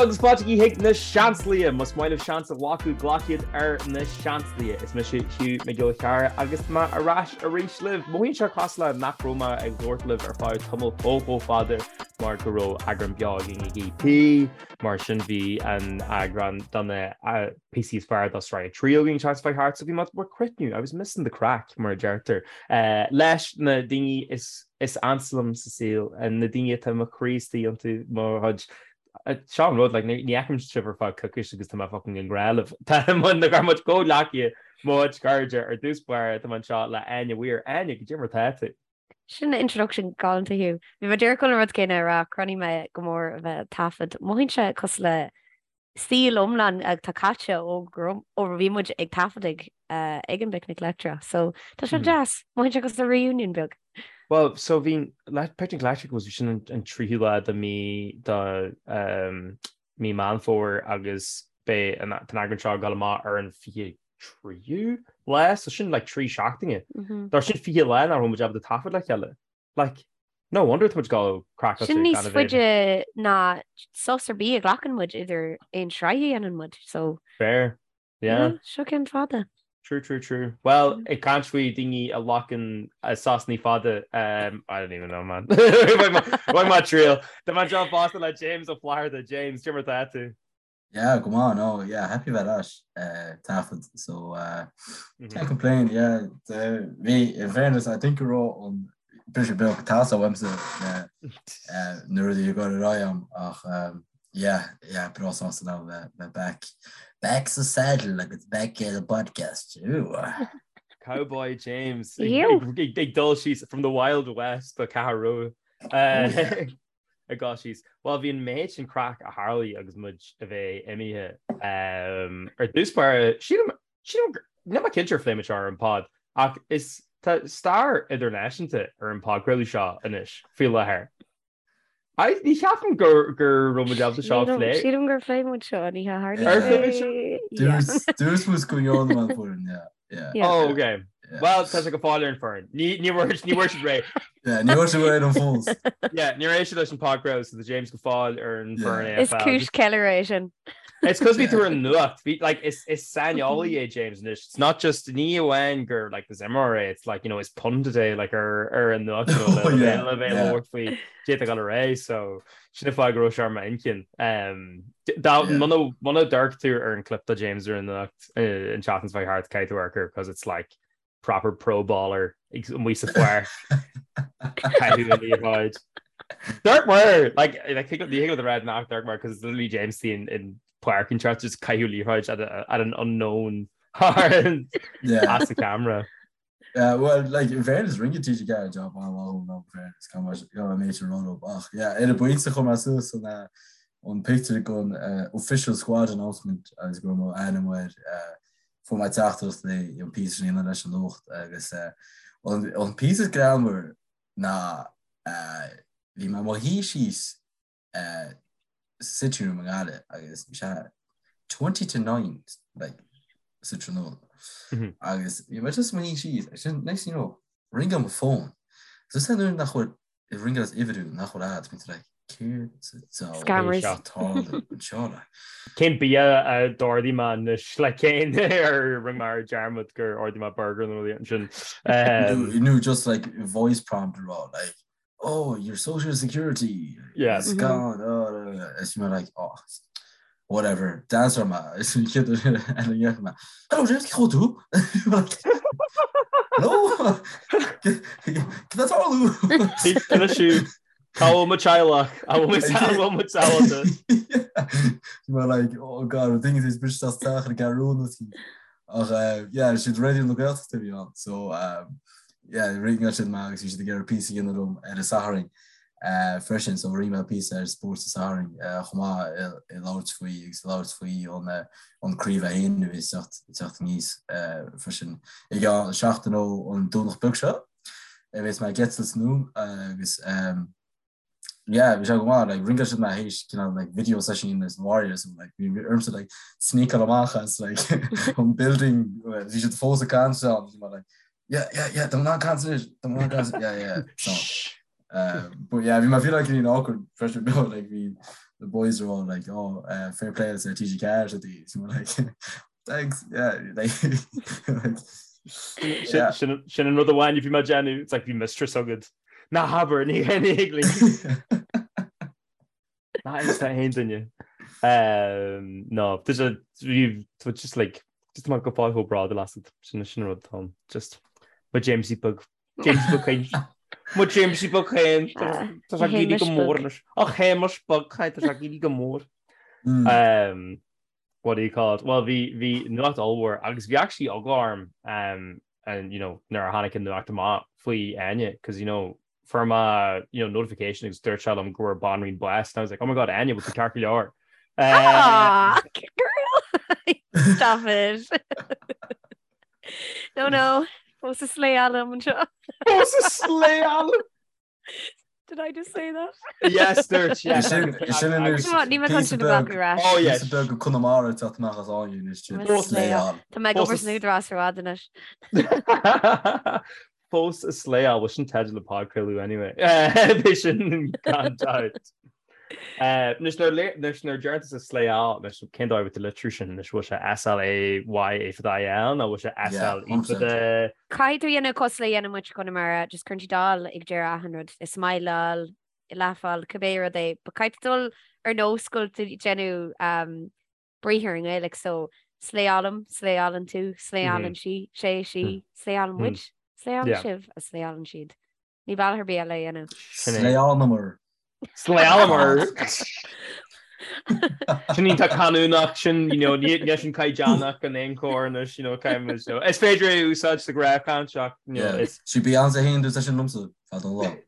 agus fáilte chuig na Seansálaithe! Más maith libh seans a ghlacadh, glac iad ar na Seansálaithe. Is mise Hugh Mac Giolla Chearra agus tá mé ar ais arís libh. Mothaíonn sé cosúil le nach raibh mé ag labhairt libh ar feadh tamall chomh chomh fada mar go raibh eagrán beo againn ag EP, mar sin bhí an eagrán do na píosaí is fearr do sraith 3 againn an tseachtain seo thart, so bhí mé ag cruithniú, I was missing the craic mar a deirtear, leis na daoine is is ansa liom sa saol, na daoine atá mo chroí istigh iontu, mo chuid, seo an rud, like, ní fheicim sibh ar feadh coicís agus tá mé fucking i ngrá libh. Tá mo, na gar muid comhghleacaithe, mo chuid cairde, ar dtús báire, tá mé anseo le Áine Weir. Áine, goidé mar tá tú? Sin introduction galánta Hugh. Bhí mé díreach chun an rud céanna a rá, chronaigh mé go mór a bheith ag taifead. Mothaíonn sé cosúil le saol iomlán atá caite ó ó bhí muid ag taifeadadh ag an bPicnic Leictreach. So tá sé deas. Mothaíonn sé cosúil le reunion beag. Bhuel, so bhí Picnic Leictreach was sin an tríú lá de mí de mí Meán Fómhair agus beidh an t-eagrán seo ag dul amach ar an 23ú lá, so sin like 3 seachtaine. Dar sin 20 lá nach raibh muid ábalta taifead le chéile. Like, no wonder tá muid ag dul craiceáilte Sin níos gan a bheith. faide ná sos ar bith a ghlacann muid idir aon sraith a dhéanann muid, so Fair. Yeah. yeah, seo ceann fada. True, true, true. Well, ag caint faoi daoine a ghlacann sosanna fada, um, I don't even know, man. Bhain mé triail. Tá mé anseo fosta le James Ó Flatharta. James, cad é mar tá tú? Yeah, go maith, no, yeah, happy bheith ar ais, eh, taifead, so, uh, can't complain, yeah, the, bhí, in fairness, I think go raibh an briseadh beag ag teastáil uaimse, eh, eh, na rudaí ag dul ar aghaidh a'm, ach, um, yeah, yeah, breá sásta now bheith, bheith back, back sa saddle agus back at the podcast, ooh. Cowboy James, ag, ag, ag dul síos from the Wild West do Ceathrú Rua. Eh, ag dul síos. Bhuel, bhí an méid sin craic a tharlaigh agus muid a bheith imithe. Ar dtús báire, sílim, sílim, níl mé cinnte ar phléigh muid seo ar an pod, ach is, tá stair idirnáisiúnta ar an podchraoladh seo anois, faoi láthair. I, ní cheapaim gur, gur raibh muid ábalta seo a phlé. Sílim gur phléigh muid seo an oíche tharlaigh Ar phléigh muid seo? Yeah. Dúirt muid go ndearna an foireann, yeah. Yeah. Yeah. Oh, okay. Yeah. Well, tá sé go fóill ar an foireann. Ní ní bhfuair ní bhfuair siad réidh. Yeah, ní bhfuair siad réidh an fós. Yeah, níor éist siad leis an podchraoladh so tá James go fóill ar an Yeah. foireann Is AFL. cúis ceiliúradh é sin. It's cos bhí tú ar an nuacht. Bhí like is is saineolaí é James anois. It's not just ní amháin gur like is imreoir é, it's like you know is pundit é like ar ar an nuacht you know, le Oh, yeah, le bheith yeah. labhairt faoi cad atá ag dul ar aghaidh so sin an fáth go raibh sé ar m'intinn. Um, dá Yeah. muna muna ndearc tú ar an clip de James ar an nuacht an tseachtain seo thart caithfidh tú amharc air because it's like proper pro baller ag amuigh sa pháirc caitheamh an liathróid. Dirk Moore like like think the of the red nach Dirk Moore because it's literally James Dean in páirc an church just caitheamh liathróid at, a, at an unknown Yeah. as the camera. Yeah, well, like, in fairness, rinne TG4 job an-mhaith in fairness, gan mar gan major rud ach yeah, ar an bpointe chuir mé suas an eh, an pictiúr den eh, official squad announcement agus go raibh mo ainm air eh, fuair mé teachtaireacht le an píosa sin a dhéanamh leis an nuacht agus eh, an an píosa is greannmhar ná eh, bhí mé i mo shuí síos eh, sa sitting room i nGaillimh agus bhí sé 8:40 like, sa tráthnóna. Agus bhí mé just i mo shuí síos agus sin next thing you know, ringeáil mo phone. So is nuair nach bhfuil ringeáil as uimhir nach bhfuil a'd, bíonn tú like, céard sa diabhal Scammers. atá ag tarlú anseo like. Cén bia a d'ordaigh mé anois le cén ar rinne mé ar dearmad gur ordaigh mé burger nó rud ansin. Nó just like voice prompt a rá like oh, your social security yeah. is gone. Oh, is mé like, oh, whatever. D'answer mé. Is an chéad uair eile a dhéanfaidh mé. Hello, James, cén chaoi tú? Hello? Cad atá ag tarlú? Anois Cá bhfuil mo teaghlach? An bhfuil mo teaghlach? Mé like, oh god, daoine is bris as teach ar gearúna Ach eh, yeah, siad Raidió na Gaeltachta a bhí ann, so um, yeah, ringeáil siad mé agus bhí siad ag iarraidh píosa a dhéanamh liom ar an Satharn eh, freisin, so rinne mé píosa ar Spórt an Sathairn eh, chomh maith ag labhairt faoi agus ag labhairt faoi an eh, an craobh a haon a bhí ag teacht ag teacht aníos eh, freisin. I gceann seachtain ó an Domhnach beag seo, a bheas mé ag eitilt anonn agus um, yeah bhí sé go maith like ringeáil siad mé théis cineál like video session leis na Warriors and like bhí ormsa like sneakáil amach as like an building bhí siad fós ag caint ann bhí mé like yeah yeah yeah tá mé in ann caint anois tá mé in ann caint yeah yeah so uh, but yeah bhí mé feel like in awkward pressure no like bhí the boys are all like oh uh, fair play to TG4 so the so like thanks yeah like, like yeah. Sin an rud amháin bhí mé ag déanamh it's like bhí mistress agad. Ná habair ní ní Ná is tá aon duine. Um, no, tá sé tá just like just mar go fáil chomh bródúil asat sin sin rud Tom just mo Jamesie beag Jamesie beag féin Mo Jamesie beag féin Ah, Tá sé ag éirí go mór anois. A Shéamais beag tá sé ag éirí go mór. Mm. Um, what do you call it? Well, bhí bhí nuacht ollmhór agus bhí actually eagla orm um, and you know nuair a tháinig an nuacht amach faoi Áine because you know fuair mé you know notification agus dúirt sé liom go bhfuair banríon bás and I was like oh my god Áine bhfuil tú ceart go leor? Ah, girl! Stop it. No, no. Fós ag slayáil liom anseo. Fós ag slayáil! Did I just say that? Yes, dúirt, yes. Sin sin anois Come on, níl mé chun sin a ghlacadh ar ais. Oh, yes. Píosa beag de Conamara ag teacht amach as Áine anois sin. Slayáil. Tá mé ag obair san Údarás ar fad anois. Fós ag slayáil, bhuel sin teideal an podchraoladh anyway. B'é sin gan dabht. Anois nuair anois nuair a deireann tusa slayáil, anois cén dóigh a bhfuil tú ag litriú sin anois, bhfuil sé S-L-A-Y A fada I-L nó bhfuil sé S-L-E fada Caithfidh tú a dhéanamh cosúil le a dhéanann muid i gConamara, just cuireann tú dáil ag deireadh achan rud, ag smileáil, ag laugháil, cibé rud é, but caithfidh tú dul ar nós go bhfuil tú ag déanamh briathar i nGaeilge, so slayálaim, slayálann tú, slayálann sí, sé, sí, slayálann muid, slayálann sibh, agus slayálann siad. Níl bealach ar bith eile a dhéanamh. Slayálamar. Slayálamar! Sin iontach canúnach, sin, you know, níl sin caighdeánach in aon chor anois, you know, caithfidh muid, you know, is féidir é a úsáid sa ghnáthchaint ach, you know, is. Sí Beyonce féin dúirt sin liomsa, fada an lá.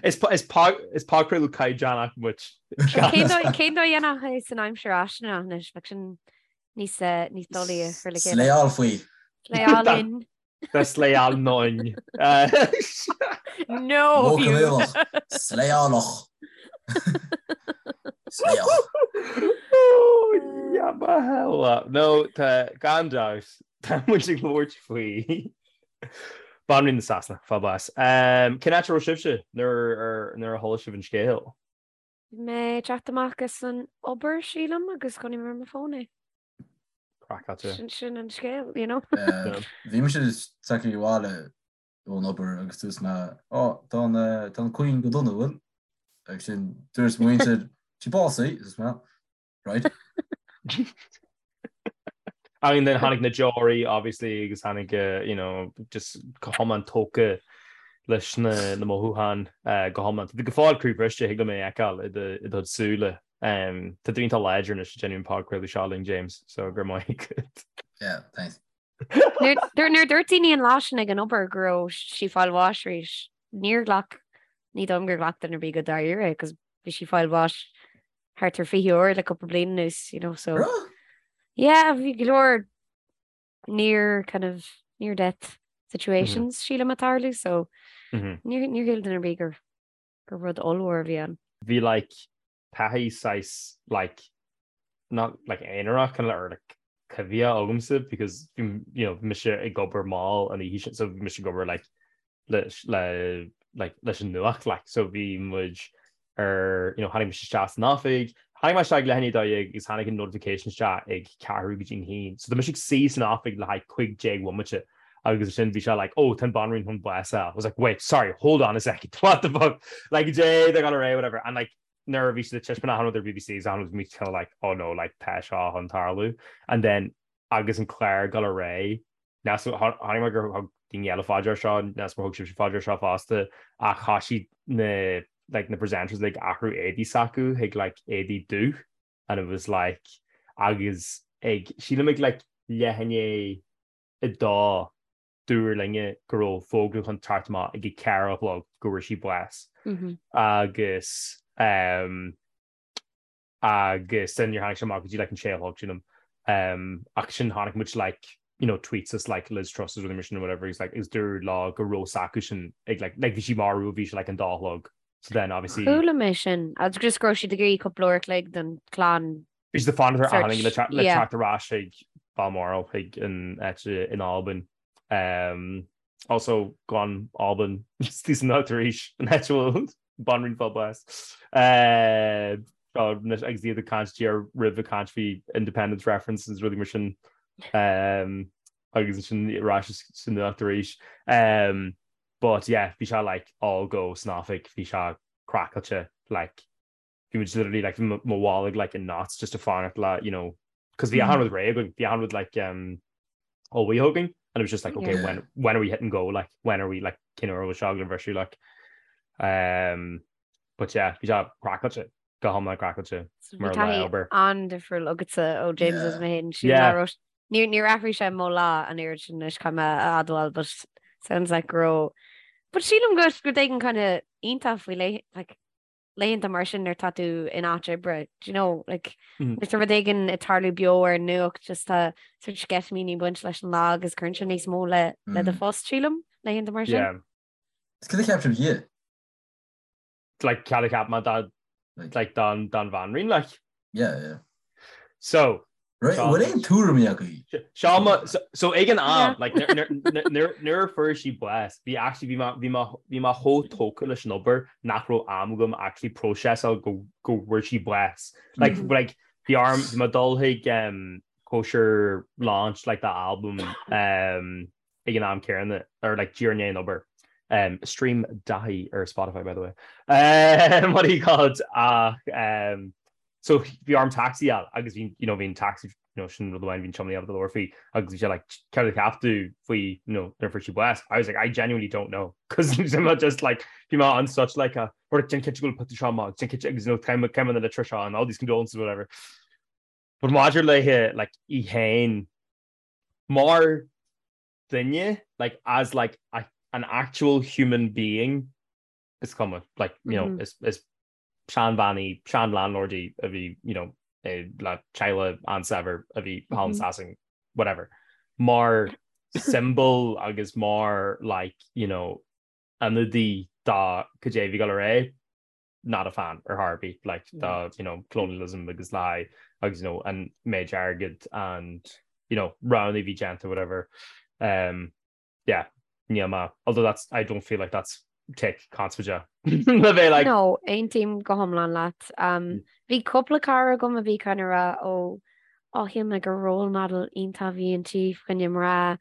Is is podchraoladh caighdeánach muid. Cén dóigh a dhéanfá é san aimsir fháistineach anois? Bheadh sin níos níos doiligh a chur le chéile. Slayáil faoi. Slayálainn. Tá slayálainn. No! Modh Gaelach. Slayálach. Slayach. Oh, yeah, ma hell. No, tá gan dabht. Tá muid ag labhairt faoi Banríon na Sasana, fáil bás. Cén áit a raibh sibhse nuair nuair a chuala sibh an scéal? Bhí mé ag teacht amach as an obair, sílim, agus chonaic mé ar mo fón é. Craiceáilte. Sin sin an scéal, you know. Bhí mise tagtha abhaile ón obair agus dúirt mé, Ó, tá an tá an Queen go dona, bhfuil? Agus sin dúirt mo mhuintir, sí básaithe, dúirt mé, right. I mean, then tháinig na deoraí, obviously, agus tháinig, you know, just go hiomlán tógtha leis na na mothúcháin go hiomlán. Tá tú go fóill croíbhriste, thig liom é a fheiceáil i do i do súile. Tá tú iontach láidir anois ag déanamh an podchraoladh seo linn, James, so go raibh maith agat. Yeah, thanks. Nuair nuair dúirt daoine an lá sin ag an obair go raibh sí ag fáil bháis arís, níor ghlac, ní dóigh liom gur ghlac duine ar bith go dáiríre é, 'cause bhí sí ag fáil bháis thart ar 20 uair le cúpla bliain anuas, you know, so. Raibh? Yeah, bhí go leor near kind of near death situations sílim ag tarlú, so níor níor shíl duine ar bith gur gur rud ollmhór a bhí ann. Bhí like taithí saghas like not like aonarach kind of or like coimhthíoch agamsa because bhí you know bhí mise ag obair mall an oíche sin so bhí mise ag obair like leis le like leis an nuacht like so bhí muid ar you know tháinig mise isteach san oifig tháinig mé isteach ag leath i ndiaidh a 12 agus tháinig an notification isteach ag ceathrú go dtí an haon so tá mise ag suí san oifig le haghaidh 15 bhomaite agus ansin bhí sé like oh tá an banríon chun bás a fháil I was like wait sorry hold on a second what the fuck like dé they're gonna whatever and like nuair a bhí siad ag taispeáint achan rud ar BBC agus achan rud bhí kind of like oh no like tá seo chun tarlú and then agus an clár ag dul ar aghaidh Chonaic mé gur thug daoine eile faoi deara seo, n'fheadar má thug sibhse faoi deara seo fosta, ach thoisigh na like na presenters like athrú éadaí s'acu chuig like éadaí dubh and it was like agus ag sílim ag like leath i ndiaidh a dó dúradh linne go raibh fógra chun teacht amach ag a ceathair a chlog go bhfuair sí bás agus um, agus then níor tháinig sé amach go dtí like an sé a chlog sílim um, ach sin chonaic muid like you know tweets as like Liz Truss is rudaí mar sin or whatever he's like is dúradh leo go raibh s'acu sin ag like like bhí sí marbh bhí sé like an dá a chlog so then obviously Chuala mé sin agus just go raibh siad ag iarraidh cúpla uair a chloig don chlann bhí siad ag fanacht ar search aon le le yeah. teacht ar ais chuig Balmoral chuig an áit in Albain um, also gan Albain istigh san áit arís an áit a bhfuil banríon fáil bás. Uh, Seo anois agus iad ag caint díreach roimh ag caint faoi independence references rudaí mar sin um, agus ansin ar ais sa nuacht arís. Um, but yeah, bhí sé like all go san oifig, bhí sé craiceáilte like bhí muid literally like bhí mo bholg like in knots just ag fanacht le you know cos bhí achan rud réidh againn, bhí achan rud like um, ullmhaithe againn and it was just like okay yeah. when when are we hitting go like when are we like cén uair a bhfuil seo ag bhriseadh like um, but yeah bhí sé craiceáilte go hiomlán craiceáilte mar lá obair. An-difriúil agatsa ó James is mé féin sí yeah. Níor níor athraigh sé mo lá an oiread sin anois caithfidh mé a admháil but sounds like go raibh but sílim go rud éigin kind of iontach faoi like laethanta mar sin nuair tá tú in áit oibre, do you know, like, nuair tá rud éigin ag tarlú beo ar an nuacht, just tá sort sceitimíní ag baint leis an lá agus cuireann sé níos mó le le do phost, sílim, laethanta mar sin. Yeah. Is cad a cheap sibh di? Like, cad a cheap mé dá, like, don, don bhanríon, like. Yeah, yeah. So, Right, bhfuil aon tuairimí agaibh? Seo mo, so ag an am, like, nuair a fuair sí bás, bhí actually, bhí mé, bhí mé, bhí mé chomh tógtha leis an obair nach raibh am agam actually próiseáil go, go bhfuair sí bás. Like, like, bhí orm, bhí mé ag dul chuig um, cóisir launch, like, dá album um, ag an am céanna, or like, díreach i ndiaidh an obair. Um, stream Daithí ar Spotify, by the way. Um, what do you call it? Ach, um, So bhí orm taxi a fháil agus bhí, you know, bhí an taxi, you know, sin rud amháin bhí an tiománaí ábalta labhairt faoi agus bhí sé like, céard a cheap tú faoi, you know, nuair a fuair sí bás? I was like, I genuinely don't know. Cos bhí mé just like, bhí mé on such like a, or déan cinnte go bhfuil pictiúr seo amach, déan cinnte agus, you know, cén cén na litreacha seo and all these condolences whatever. But maidir léi, like, í féin, mar duine, like, as like a, an actual human being, is cuma, like, you know, is, is seanbhean í, sean-landlord í a bhí, you know, le teaghlach an-saibhir a bhí thall in Sasain, whatever. Mar symbol agus mar like, you know, ionadaí do cad é a bhí ag dul ar aghaidh, not a fan ar chor ar bith, like, do, you know, colonialism agus lie agus, you know, an méid airgid and, you know, roghanna a bhí déanta, whatever. Um, yeah, níl mé, although that's, I don't feel like that's take conspóideach le bheith like. No, aontaím go hiomlán leat. Um, bhí cúpla cara agam a bhí kind of rá ó ó shíl mé gur role model iontach a bhí inti fá choinne mná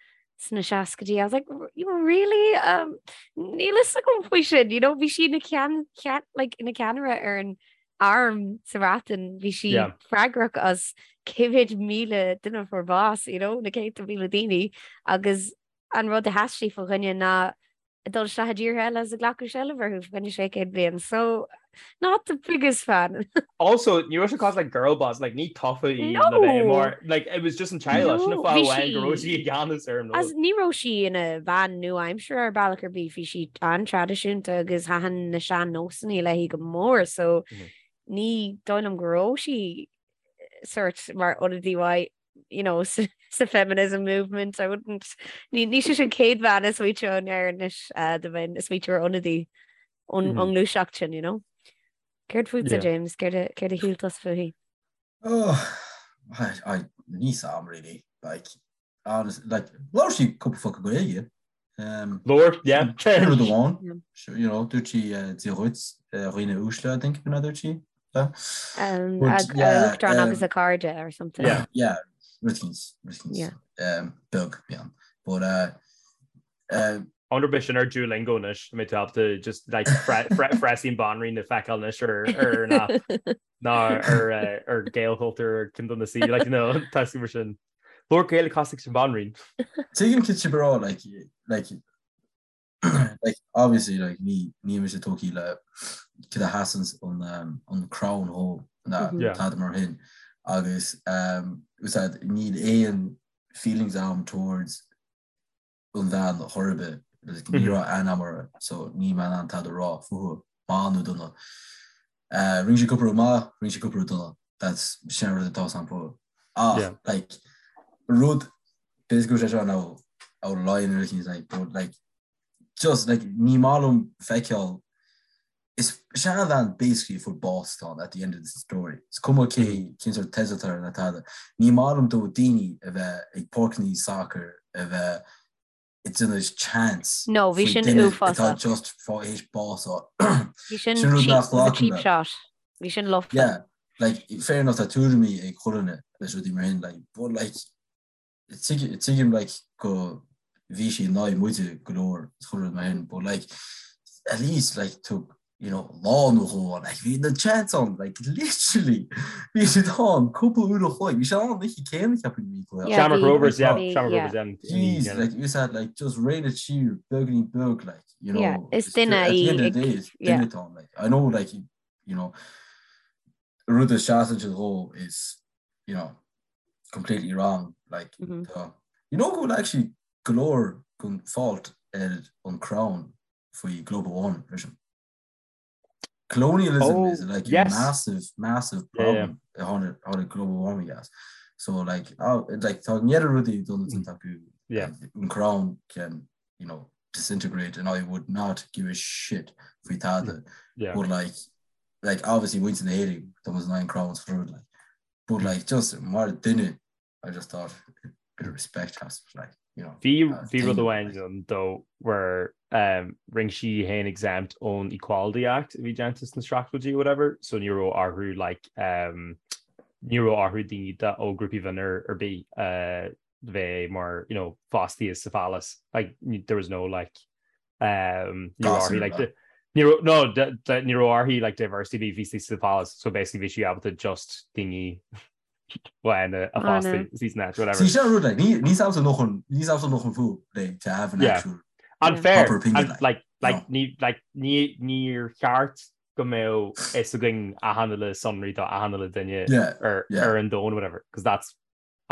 sna seascaidí. I was like, really? Um, níl fhios agam faoi sin, you know, bhí sí ina ceann, ceann, like, ina ceannaire ar an arm sa Bhreatain, bhí sí yeah. freagrach as cé mhéad míle duine a fuair bás, you know, na céadta míle daoine, agus an rud a sheas sí fá choinne ná dul isteach i dtíortha eile is ag glacadh seilbh orthu fá choinne 600 bliain. So, not the biggest fan. Also, ní raibh sé cosúil le girl boss, like, ní tofa í No! le bheith mar, like, it was just an teaghlach, sin an No, fáth bhí amháin go sí- raibh sí i gceannas ar an As rud. ní raibh sí ina bhean nua-aimseartha ar bealach ar bith, bhí sí an-traidisiúnta agus thaitin na sean-nósanna léi go mór, so ní dóigh liom go raibh sí sort mar ionadaí mhaith, you know, sa, sa feminism movement. I wouldn't, ní, ní sí an chéad bhean a smaointeoinn air anois uh, dá mbeinn ag smaointiú ar ionadaí ón mm -hmm. ngluaiseacht sin, you know. Céard fútsa, yeah. James? Céard a, céard a shíl tusa fúithi? Oh, I, I, níl 'fhios a'm really, like, honest, like, labhair sí cúpla focal Gaeilge. Um, Labhair, yeah. Sin rud amháin, you know, dúirt sí uh, Dia dhuit, uh, dhaoine uaisle, I think, b'in a dúirt sí. Um, But, yeah, Uachtarán um, agus a cairde or something. Yeah. Yeah, rud éicint, rud éicint, Yeah. um, beag, yeah. But, uh, uh, I wonder b'shin ar Duolingo anois, mbeidh tú ábalta just like frásaí an bhanríon a fheiceáil anois ar ar ná ná ar eh, ar Gaelchultúr ar ceann de na sí like you know tá mar sin. Labhair Gaeilge cosúil leis an bhanríon. Tuigim cad tá sibh ag rá, like, like, like, obviously, like, ní, ní mise tógtha le cad a sheasann an, um, an crown dhó ná Mhm. Yeah. tada mar sin. Agus, um, úsáid, níl aon feelings a'm towards an bhean chor ar bith, like, ní raibh aithne a'm uirthi, so níl mé in ann tada a rá fúithi, maith nó dona. Uh, rinne sí cúpla rud maith, rinne sí cúpla rud dona. That's sin an rud atá 'fhios a'm fúithi. Ach, Yeah. like, rud, b'fhéidir go bhfuil sé seo now out of line or anything, like, but like, just like, ní maith liom feiceáil Is seanbhean basically a fuair bás atá ann at the end of the story. Is cuma cé cén sórt teideal atá air ná tada. Ní maith liom do daoine a bheith ag páirceanna sacair a bheith ag déanamh chants No, bhí faoi sin duine uafásach. atá just fá théis bás a fháil. Bhí sin Sin rud cheap, nach it was a nglacaim cheap le. shot. Bhí sin lofa. Yeah. Like, fair enough tá tuairimí ag chuile dhuine leis rudaí mar sin, like, but like, tuigim like go bhí sí in aghaidh muide go leor is chuile rud mar sin, but like, at least like tug you know, lá nó dhó ann, like bhí na chants ann, like literally bhí siad ann cúpla uair a chloig, bhí siad ann an oíche céanna ceapaim bhí cluiche. Yeah, Shamrock Rovers, yeah, Shamrock Rovers, yeah. Jeez, like you said, like just rein it siar beagáinín beag, like, you know. Yeah, is duine í. At the end of the day, is duine atá ann, like, I know, like, you know, rud a seasann siad dhó is, you know, completely wrong, like, mm -hmm. tá, you know go bhfuil actually go leor den fault ar an crown faoi global warming freisin. Colonialism oh, is like yes. a massive, massive problem yeah, yeah. tháinig global warming as. So like, oh, like tá an oiread rudaí done mm. acu yeah. an crown can you know disintegrate and I would not give a shit faoi tada. Yeah. But like like obviously muintir na hÉireann tá muid in aghaidh an crown rud like but like just mar duine I just thought a bit of respect has to like you know. Bhí bhí rud amháin ann though where um, rinne sí í féin exempt ón Equality Act a bhí déanta sna seachtóidí or whatever so ní raibh orthu like um, ní raibh orthu daoine ó grúpaí mionlaigh ar bith uh, bheith mar you know fostaithe sa phalace like there was no like um, ní raibh orthu like ní raibh no ní raibh orthu like diversity bhí bhí sa phalace so basically bhí sí ábalta just daoine bhána a fhostú season that whatever. See sin rud like ní ní samsa noch an ní samsa noch an fú like to have an Yeah. actual Unfair proper opinion and like like like no. ní like ní níor cheart go mbeadh fhios againn achan uile sonraí do achan uile duine Yeah, ar yeah. ar an domhan whatever because that's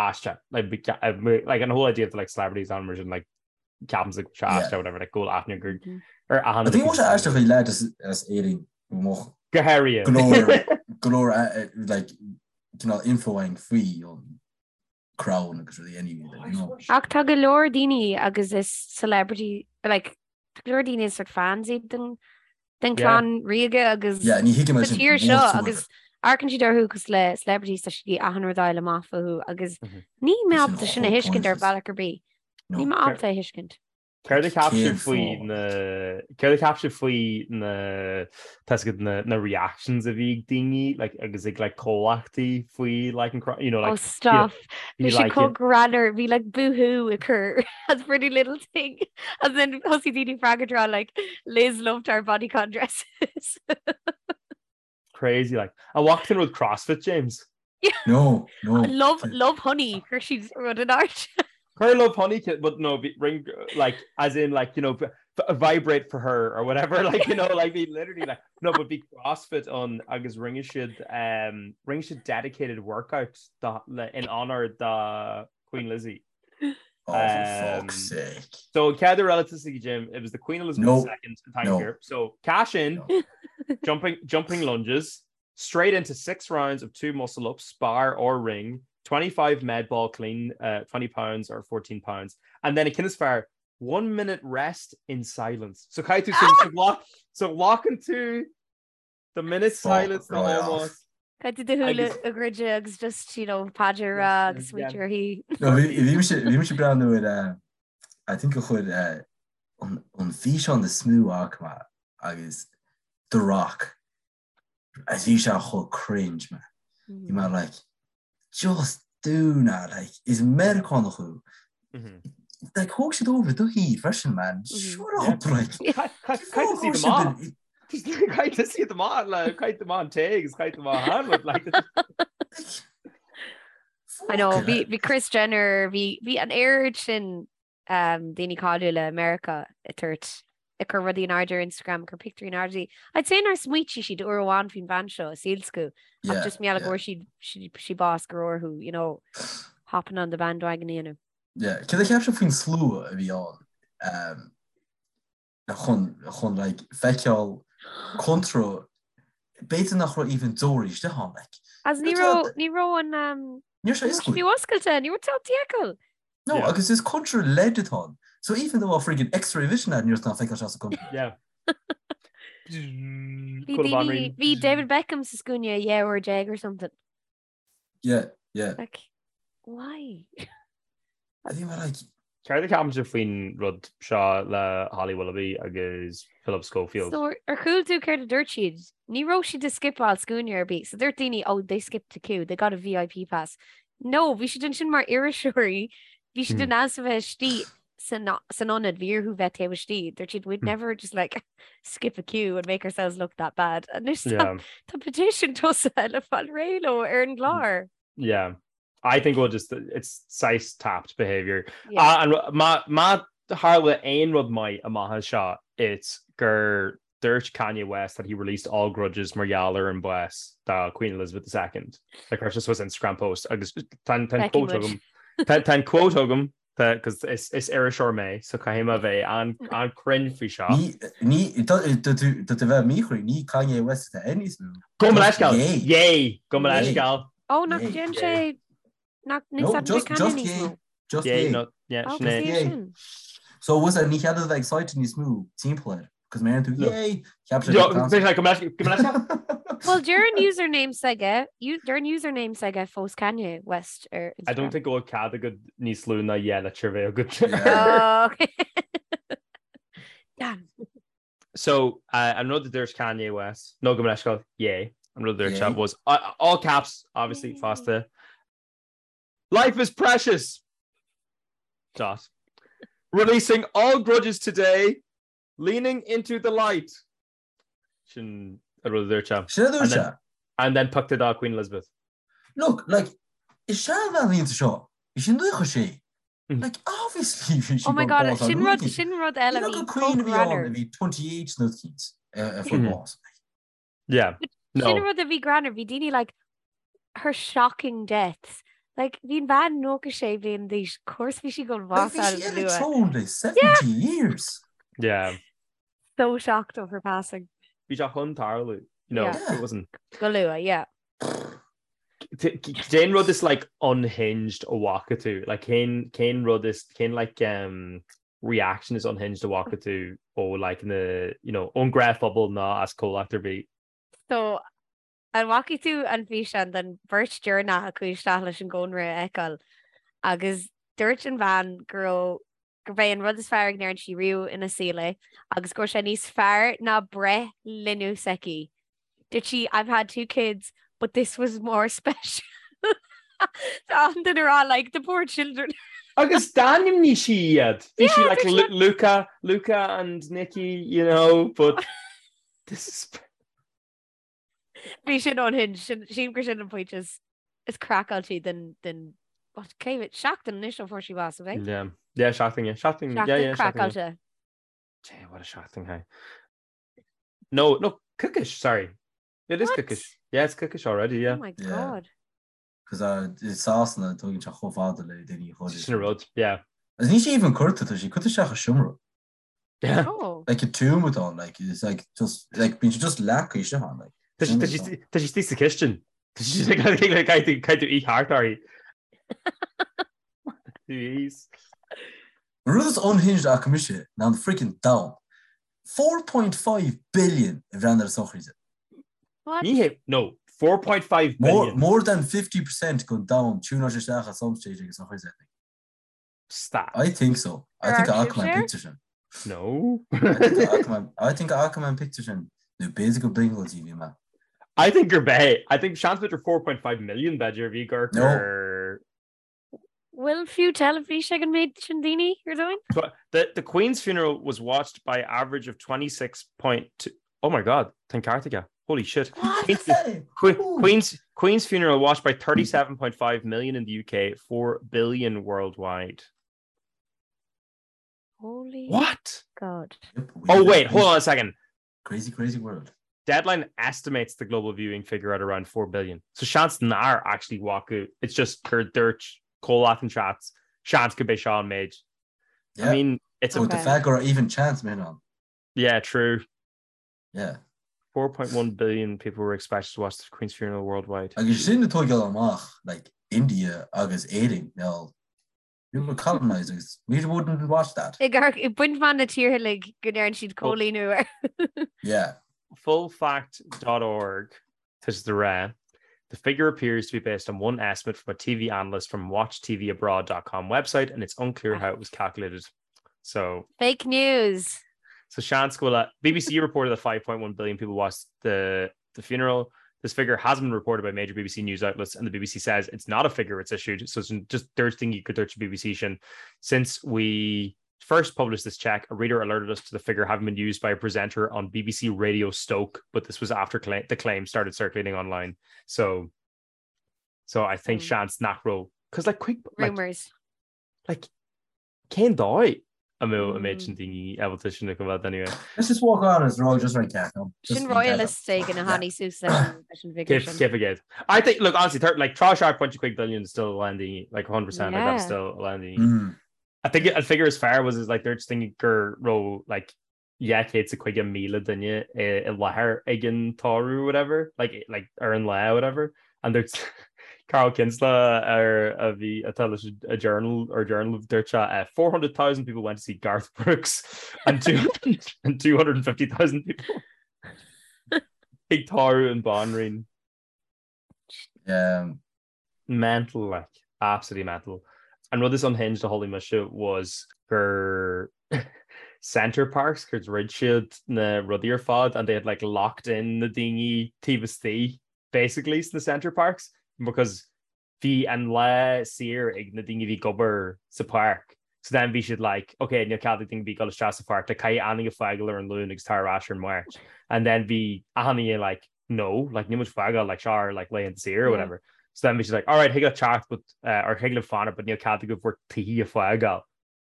aisteach like be- uh, like an whole idea of the like celebrities on mar sin like ceapaimse go bhfuil sé aisteach whatever like go bhfuil aithne gur ar achan I think uile bhfuil sé aisteach faoi leaid as as Éirinn go mbeadh Go háirithe. go leor go leor eh, eh, like cineál info againn faoi an crown agus rudaí anyway like, you know. Ach tá go leor daoine agus is celebrity like tá go leor daoine is sort fans iad den den Yeah. clann ríoga agus Yeah, ní thuigim sa sin tír seo whatsoever. agus amharcann siad orthu cosúil le celebrities tá siad achan rud a fháil amach fúthu agus Mhm. níl mé Sin ábalta sin a chomh thuiscint ar pointless. bhealach ar bith. No. Níl mé ábalta a thuiscint. Céard a cheap Cén sibh faoi fáth? na Céard a cheap sibh faoi na tá 'fhios agat na na reactions a bhí ag daoine like agus ag like comhlachtaí faoi like an cro- you know Oh like stop. you know, Bhí bhí sé like chomh greannmhar, bhí like boohoo ag cur as Pretty Little Thing and then thosaigh daoine freagairt ag rá like Liz loved our bodycon dresses. Crazy like. An bhfaca tú an rud CrossFit James? No, no. Love love honey chuir siad rud in airde. Chuir love honey but no bhí ring like as in like you know vibrate for her or whatever like you know like bhí literally like no but bhí CrossFit ann agus rinne siad um rinne siad dedicated workout da, le, in honor da Queen Lizzie. Oh, for fuck's sake. So céad uair eile tosaigh Jim, it was the Queen Elizabeth No. II thank No. you. So cash in, No. jumping jumping lunges, straight into six rounds of two muscle ups, bar or ring, 25 med ball clean, uh, 20 pounds or 14 pounds, and then a ceann is fearr, one minute rest in silence. So caithfidh tú so, so lock so lock into the minute silence right off. almost. Caithfidh tú do shúile Agus- a dhruid agus just you know paidir a rá agus smaointiú uirthi. No, bhí bhí mise bhí mise ag breathnú ar eh, I think a chuir eh, an an físeán is mó a fhaca mé agus The Rock a bhí sé chomh cringe man. Bhí mé like just do not like is Meiriceánach thú. Like thóg siad over do thír freisin man. Shut up like. Caithfidh siad amach. Caithfidh siad amach le caithfidh amach an té agus caithfidh amach an like. I know bhí bhí Kris Jenner bhí bhí an oiread sin um, daoine cáiliúla i Meiriceá ag tabhairt ag cur rudaí in airde ar Instagram, ag cur pictiúirí in airde. I'd say nár smaoitigh siad uair amháin faoin bhean seo i saol s'acu ach just mar gheall go bhfuair siad sí sí bás go raibh orthu, you know, hopping on the bandwagon a dhéanamh. Yeah, céard a cheap sibh faoin slua a bhí ann um, chun chun like feiceáil contra b'fhéidir nach raibh even deoraí istigh ann like. As ní raibh ní raibh an um, Ní raibh sé ní raibh sé oscailte. fiú oscailte, ní raibh tú ábalta feiceáil. No, Yeah. agus is contra LED atá ann. So even though a friggin X-ray vision agat ní raibh tú feiceáil sa contra. Yeah. Bhí Cúl daoine, banríon. bhí David Beckham sa scuaine 12 uair or something. Yeah, yeah. Like, why? Bhí mé like, Céard a cheapann sibh faoin rud seo le Holly Willoughby agus Philip Schofield? So ar chuala tú céard a dúirt siad? Ní raibh siad ag scipeáil scuaine ar bith. So dúirt daoine, oh, they skipped a queue, they got a VIP pass. No, bhí siad ansin mar iriseoirí, bhí siad in ann a bheith istigh san san ionad, bhí orthu bheith taobh istigh. Dúirt siad, we'd never just like skip a queue and make ourselves look that bad. Anois tá tá petition tosaithe le fáil réidh leo ar an gclár. Yeah. I think we'll just it's saghas tapped behaviour. Yeah. And má má tharla aon rud maith amach as seo it's gur dúirt Kanye West that he released all grudges mar gheall ar an bás do Queen Elizabeth II. Like chuir sé suas Instagram post agus tá an Feicfidh quote muid. agam tá tá an quote agam tá cos is is iriseoir mé so caithfidh mé bheith an an cruinn faoi seo. Ní ní tá tá tú tá tú bheith míchruinn ní Kanye West atá air níos mó. Gabh mo Just leithscéal! Ye. Ye! Gabh mo Ye. leithscéal! Oh, nach Ye. dtéann Ye. sé nach No, n-úsáideann sé just Kanye just níos Ye. mó. Just Ye Ye. no yeah Oh, sin é. cosúil Ye. sin. So was ní chead a bheith excited níos mó timpeall air, cos má deireann tú No. Ye! Cheap sé Yo, go bhí sé, gabh mo leithscéal, gabh mo leithscéal. Well, deir an username s'aige, deir an username s'aige fós Kanye West ar I don't Instagram. think go bhfuil cead agat níos lú ná dhá litir bheith agat. Yeah. Oh, okay. Damn. So, uh, an rud a dúirt Kanye West, no gabh mo leithscéal, Ye, an rud a dúirt sé Ye. was, uh, all caps, obviously, Ye. fosta. Life is precious! Dot. Releasing all grudges today, leaning into the light. Sin an rud a dúirt sé. Sin a dúirt And then- sé. And then pictiúr do Queen Elizabeth. Look, like, is seanbhean í seo, bhí sí nócha sé. Mm. Like, obviously bhí sí Oh my ag god, bás sin rud, luath. sin rud eile Look bhí at Queen a bhí chomh ann a greannmhar. bhí 28 nó cínt a fuair Mhm. bás. Yeah. No. Sin rud a bhí greannmhar, bhí daoine like her shocking deaths. Like bhí an bhean 96 bliain d'aois, of course bhí sí ag Like, bás bhí sí ar an luath. throne le 70 years. Yeah. So shocked of her passing. Bhí sé chun tarlú. You know, Yeah. it wasn't. Go luath, yeah. Cén rud is like unhinged a bhfaca tú? Like cén cén rud is cén like um reaction is unhinged a bhfaca tú ó like na you know ón ngnáthphobal ná as comhlacht ar bith? So an bhfaca tú an físeán den bheirt deireanach a chuaigh isteach leis an gcónra a fheiceáil agus dúirt an bhean go raibh gurb é an rud is fearr a ndearna sí riamh ina saol é agus go raibh sé níos fearr ná breith linbh s'aici. Dúirt sí I've had two kids but this was more special. Tá an duine ag rá like the poor children. Agus d'ainmnigh sí iad. Bhí sí Yeah, like dúirt Lu- Luca, Luca and Nikki, you know, but this is Bhí sin unhinged, sin sílim gur sin an pointe is is craiceáilte den den what cé mhéad seachtain anois ó fuair sí bás, ab é? Yeah. Yeah, seachtain, yeah. Seachtain, yeah, Seachtain yeah, seachtain, yeah. craiceáilte. Damn, what a seachtain, hey. No, no, coicís, sorry. It is What? coicís. Yeah, it's coicís already, yeah. Oh my Yeah. god. Cos uh, i Sasana tógann sé chomh fada le daoine a chur. Sin an rud, yeah. Agus níl sí even curtha, tá sí curtha isteach i seomra. Yeah. Oh. Like a tomb atá ann, like it's like just like bíonn sé just leagtha isteach ann, like. Tá sí- tá sí- tá sí istigh sa chistin. Tá sí caithfidh tú í thart uirthi. Jeez. An rud is unhinged a chonaic mise ná an freaking domhan. 4.5 billion a bhreathnaigh ar an sochraid. What? Ní hé, no, 4.5 More, billion. more than 50% den domhan tiúnáil isteach at some stage ag an sochraid, I think. Stop. I think so. I think Ar a fhaca mé an sibhse? picture sin. No. I think a fhaca mé- I think a fhaca mé an picture sin. Nó b'fhéidir gur brionglóid a bhí mé. I think gur b'é. I think seans b'fhéidir 4.5 million b'fhéidir bhí gur No. gur Bhfuil fiú teilifís ag an méid sin daoine ar domhan? The, the Queen's funeral was watched by average of 26.2 Oh my god, tá an ceart aige. Holy shit. Queen's, Que- Ooh. Queen's Queen's funeral watched by 37.5 million in the UK, 4 billion worldwide. Holy What? God. Yep, we Oh live in wait, hold crazy- on a second. Crazy, crazy world. Deadline estimates the global viewing figure at around 4 billion. So seans nár actually bhfaca. It's just gur dúirt comhlacht an chats. Seans gurb é seo an méid. Yeah. I mean, it's a But the Okay. fact gur even chance man on. yeah, true. Yeah. 4.1 billion people were expected to watch the Queen's funeral worldwide. Agus sin atá ag dul amach like India agus Éirinn now we were colonized agus we wouldn't watch that. Ag ag baint amach na tíortha uilig go ndearna siad coilíniú air. Yeah. Fullfact.org tá siad ag rá. The figure appears to be based on one estimate from a TV analyst from WatchTVAbroad.com website and it's unclear how it was calculated. So fake news. So seans go bhfuil BBC reported that 5.1 billion people watched the the funeral. This figure hasn't been reported by major BBC news outlets and the BBC says it's not a figure it's issued. So it's just dúirt daoine gur dúirt BBC sin. Since we first published this check, a reader alerted us to the figure having been used by a presenter on BBC Radio Stoke, but this was after cla the claim started circulating online. So so I think mm. seans nach raibh because like quick like, rumors like cén dóigh a mbeadh an méid sin daoine ábalta sin a choimhéad anyway. Let's just walk on as raw just right cat. Sin royalist éigin a tháinig suas leis an bhfigure sin. Cé aige. I think look honestly like 3.7 billion is still a lán daoine like 100% like that's still a lán daoine. Mm. I think an figure is fearr was is like dúirt daoine go raibh like 250,000 duine i láthair ag an tórramh whatever like like ar an lá whatever and dúirt Carl Kinsella ar a bhí atá leis a journal or journal dúirt sé uh, 400,000 people went to see Garth Brooks and, two, and 250,000 people ag tórramh an Banríon. Yeah. Mental like absolutely mental. An rud is unhinged a chuala mise was gur Center Parcs gur dhruid siad na rudaí ar fad and they had like locked in na daoine taobh istigh basically sna Center Parcs because bhí an lá saor ag na daoine a bhí ag obair sa pháirc so then bhí siad like ok níl cead ag daoine bheith ag dul isteach sa pháirc like caithfidh achan duine fágáil ar an Luan agus tar ar ais ar an Máirt and then bhí achan duine like no, like níl muid fágáil like seo ár like laethanta saoire or whatever. So then bhí siad like, alright, thig leat teacht but uh, or thig libh fanacht but níl cead agaibh bhur tithe a fágáil.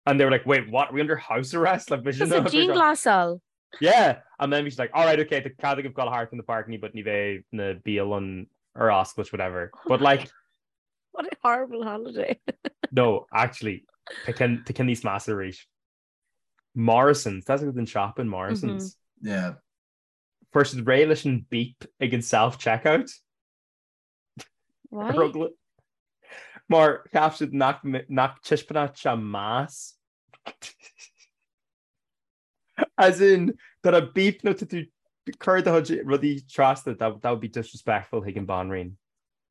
And they were like, wait, what? Are we under house arrest? Like, bhí siad dianghlasáil. Yeah, and then bhí siad like, alright, okay, tá cead agaibh gabháil thart in the park but ní bheidh na bialanna ar oscailt whatever. But like What a horrible holiday. no, actually, tá ceann níos measa arís. Morrisons, that's an shop in Morrisons. Mm -hmm. Yeah. Fuair siad réidh leis an beep ag an self-checkout. Why? Mar cheap siad nach nach dtaispeánfadh sé meas. As in, tá a beep nó tá tú cur do chuid rudaí trasna, that, that would be disrespectful chuig an Banríon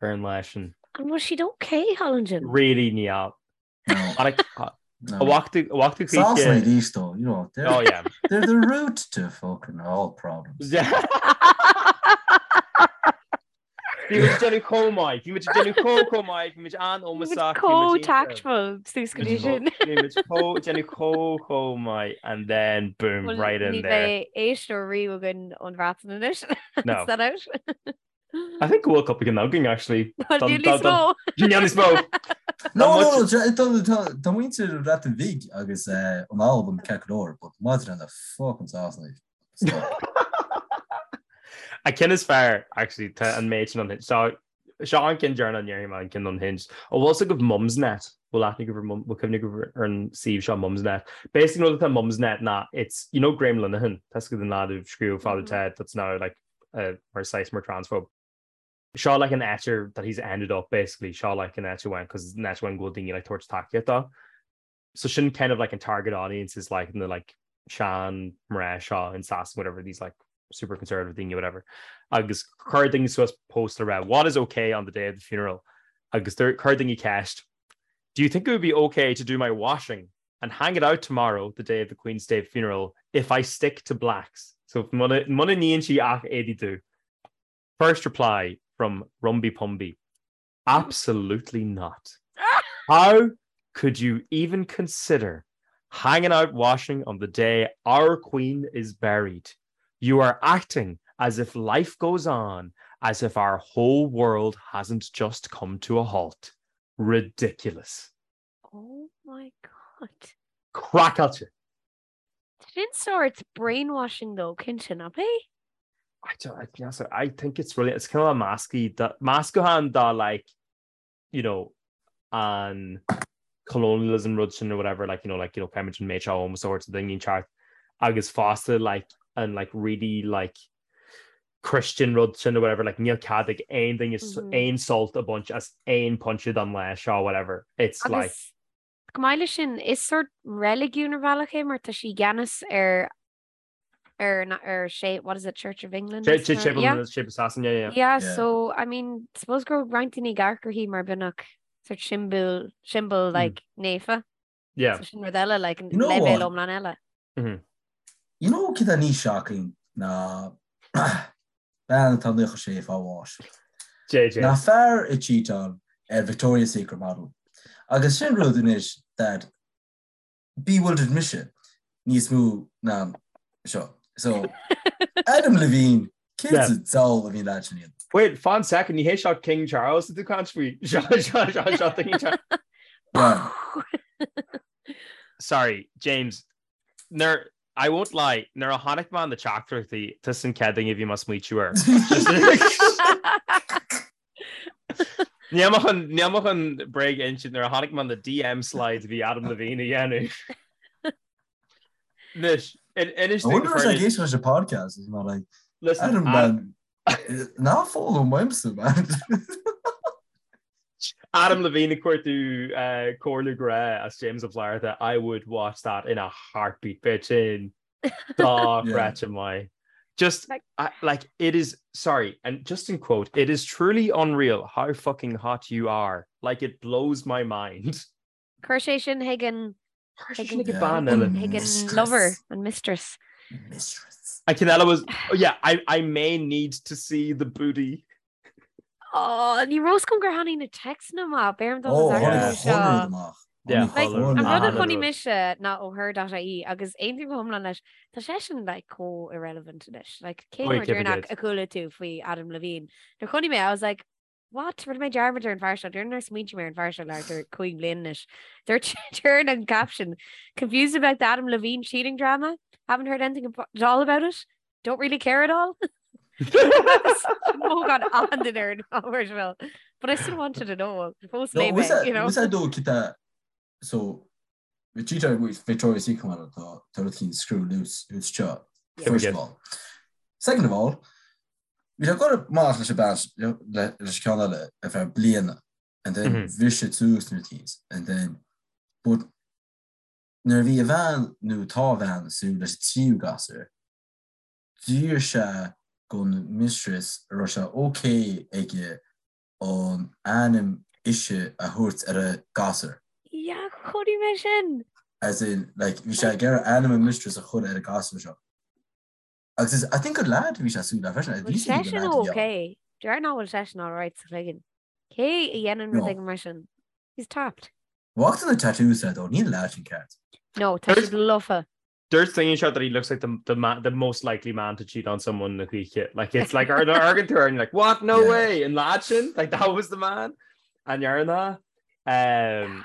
ar an lá sin. An bhfuil siad okay thall ansin? Really níl. No. A bhachtu chuige. Sasana arís though, you know, they're, oh, yeah. they're the root to fucking all problems. Bhí muid déanamh chomh maith, bhí muid déanamh chomh chomh maith, bhí muid an-ómosach. Chomh tactful suas go dtí sin. Bhí muid chomh déanamh chomh chomh maith and then boom, right in there. Ní bheidh éisteoir riamh againn ón Bhreatain anois. No. Is that out? I think go bhfuil cúpla ceann againn actually. Níl níos mó. Níl níos mó. No, no, tá muintir an Bhreatain Bhig agus an Albain ceart go leor, but maidir le na fucking Sasanaigh. An ceann is fearr, actually, tá an méid sin unhinged. So, seo an ceann deireanach a ndéarfaidh mé an ceann unhinged. An bhfuil fhios agaibh Mumsnet? Bhfuil aithne agaibh ar Mum, bhfuil cuimhne agaibh ar an suíomh seo Mumsnet? Basically, an rud atá Mumsnet ná it's, you know Graham Linehan, tá fhios agat an lad a scríobh Father Ted that's now like mar saghas mar transphobe. Seo like an áit that he's ended up basically, seo like an áit a went because an áit a went go bhfuil daoine like tabhairt tacaíocht dó. So sin kind of like an target audience is like na like sean mná seo in Sasana whatever these like super conservative daoine whatever. Agus chuir daoine suas post le rá what is okay on the day of the funeral agus chuir daoine ceist Do you think it would be okay to do my washing and hang it out tomorrow, the day of the Queen's State funeral, if I stick to blacks? So muna níonn sí ach éadaí dubh. First reply from Rumby Pumby. Absolutely not. How could you even consider hanging out washing on the day our queen is buried? You are acting as if life goes on, as if our whole world hasn't just come to a halt. Ridiculous. Oh my God. Craiceáilte. Sin sórt brainwashing though, cinnte, nach é? I don't, I, yes, I think it's really, it's kind of a masky, meascán de like, you know, an colonialism rud sin or whatever, like, you know, like, you know, caithfimid an méid seo ómós a thabhairt do dhaoine inteacht agus fosta like an like really like Christian rud sin or whatever, like níl cead ag aon duine aon sult a bhaint as aon pointe den lá seo whatever. It's like. Agus chomh maith leis sin, is sórt reiligiún ar bhealach é mar tá sí i gceannas ar. Ar ar sé what is it Church of England? Church of England Sasana yeah. Yeah, so I mean suppose go raibh roinnt daoine ag amharc uirthi mar beagnach sort symbol symbol hmm. like naofa. Yeah. So sin rud eile like an leibhéal iomlán eile. Mm-hmm. You know cad atá níos shocking ná bean atá 96 fáil bháis. JJ. Ná fear ag cheatáil ar Victoria's Secret model. Agus sin rud anois that bewildered mise níos mó ná seo. So, Adam Levine, céard sa diabhal a bhí an lad sin a dhéanamh? Wait, fan second, ní hé seo King Charles atá tú ag caint faoi? Seo, seo, seo, seo King Charles. Sorry, James, nuair, I won't lie, nuair a chonaic mé na teachtaireachtaí, tusa an chéad duine a bhí mé ag smaoitiú air. Níl mé chun, níl mé chun bréag a insint nuair a chonaic mé na DM slides a bhí Adam Levine a dhéanamh. Anois, inis I wonder if ag éisteacht leis an podcast is not like Listen, Adam man ná follow m'aimse man. Adam Levine ag cuartú comhairle grá as James Ó Flatharta, I would watch that in a heartbeat, bit sin. Dochreidte maith. Just Like- I, like it is sorry, and just in quote, it is truly unreal how fucking hot you are. Like it blows my mind. Chuir sé sin chuig an Chuir sé sin chuig chuig an bean eile. chuig an Mistress. lover, an mistress. Mistress. An ceann eile was oh yeah, I, I may need to see the booty. Oh, ní raibh a fhios agam gur tháinig na téacsanna amach, b'fhearr dom Oh, an tháinig Yeah. seo. chuile rud amach. Yeah, Tháinig Like, chuile an rud a rud. chonaic mise ná ó her.ie agus aontaím go hiomlán leis, tá seisean like chomh irrelevant anois. Like, cén Oi, uair cé deireanach mhéad? a chuala tú faoi Adam Levine? Nuair a chonaic mé, I was like, what? Rinne mé dearmad ar an bhfear seo, déarfainn nár smaointigh mé ar an bhfear seo le thart ar 5 bliana anois. Dúirt deireann an caption, confused about the Adam Levine cheating drama? Haven't heard anything at all about it? Don't really care at all? Mógán an ar an ábhar But I still wanted to know. Fós No, léigh was mé, that you know. was that dó cita so Vegeta with Victoria's Secret model tá tá rud éicint screw loose loose seo Yeah. first of all. Second of all, bhí sé ag dul amach leis an bean le leis an ceann eile ar feadh bliana and then Mhm. bhris sé suas na things and then but nuair a bhí a bhean nó tá a bhean ag súil leis an tríú gasúr D'iarr sé gon mistress an raibh sé ok aige an ainm ise a thabhairt ar a gasúr. Yeah, chonaic mé sin! As in, like, bhí sé ag iarraidh ainm a mistress a chur ar an gasúr seo. Agus is, I think gur lad a bhí sé ag súil le freisin. Bhfuil seisean ok? Déarfainn nach bhfuil seisean alright sa chloigeann. Cé a dhéanann rud éigin mar sin? He's tapped. Bhfaca tú na tattoos air though, níl an lad sin ceart. No, tá siad lofa. Dúirt duine anseo that he looks like the, the, ma the most likely man to cheat on someone na choíche. Like it's like ar amharcann tú air and you're like, what? No Yeah. way! An lad sin? Like that was the man? An ndearna? Um,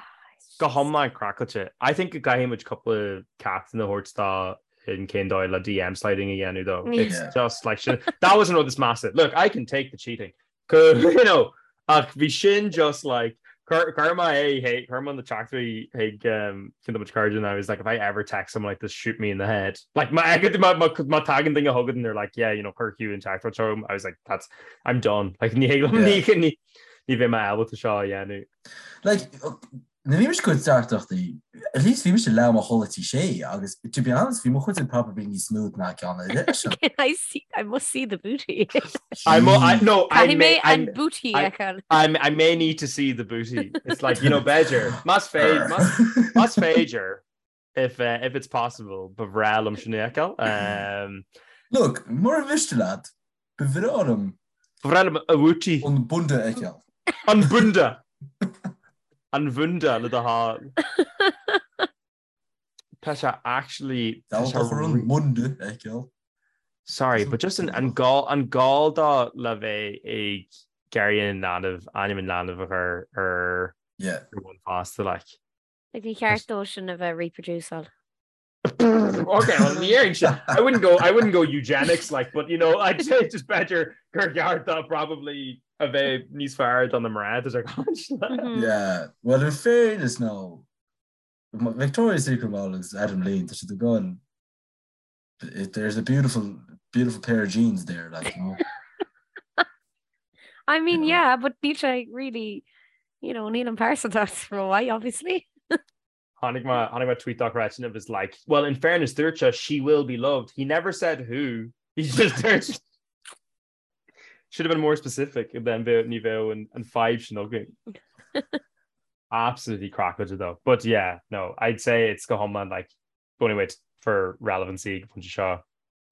go hiomlán craiceáilte. I think go gcaithfidh muid cúpla ceachtanna a thabhairt dó in cén dóigh le DM sliding a dhéanamh though. It's Yeah. just like sin, that was an rud is measa. Look, I can take the cheating. Go, you know, ach bhí sin just like Chuir mé é, hey, chuir mé na teachtaireachtaí chuig ceann de mo chairde and I was like, if I ever text someone like this, shoot me in the head. Like má má tagann duine chugat and they're like, yeah, you know, chuir Hugh an teachtaireacht seo chugam, I was like, that's, I'm done. Like ní ní ní bheidh mé ábalta seo a dhéanamh. Like, nuair a bhí mise ag cur teachtaireachtaí, at least bhí mise leath am a chodladh tí sé agus to be honest bhí mo chuid probably níos smooth ná ceann eile sin. Can I see, I must see the booty. I mo, I, no, I Caithfidh may, mé I, an booty I- a fheiceáil. I, I may need to see the booty. It's like, you know, b'fhéidir, más féidir, más, más féidir, if, uh, if it's possible, ba bhreá liom sin a fheiceáil. Um, Look, mura mhiste leat, ba bhreá liom Ba bhreá liom a bhooty. an bunda a fheiceáil. An bunda! An bhunda le do thoil. Tá sé actually tá sé Dá an bunda a fheiceáil. Sorry, but just an an gá an gá dó le bheith ag iarraidh an leanbh ainm an leanbh a chur ar Yeah. ar bhun fosta like. Like ní cheart dó sin a bheith reproduceáil. Okay, well, ní dhéarfainn sin. I wouldn't go I wouldn't go eugenics like, but you know, I'd say just b'fhéidir gur cheart dó probably a bheith níos fearr do na mná is ar caint le. Mhm. Yeah, well in fairness now, Victoria's Secret model is Adam Levine, tá siad ag goil there's a beautiful beautiful pair of jeans there like you know. I mean, You know. yeah, but níl sé really, you know, níl an pearsantacht rómhaith, obviously. Tháinig mé tháinig mé tweet dochreidte and it was like, well in fairness dúirt sé she will be loved. He never said who. He just dúirt Should have been more specific then bheadh ní bheadh an an fadhb sin againn. Absolutely craiceáilte though. But yeah, no, I'd say it's go hiomlán like the only way for relevancy go pointe seo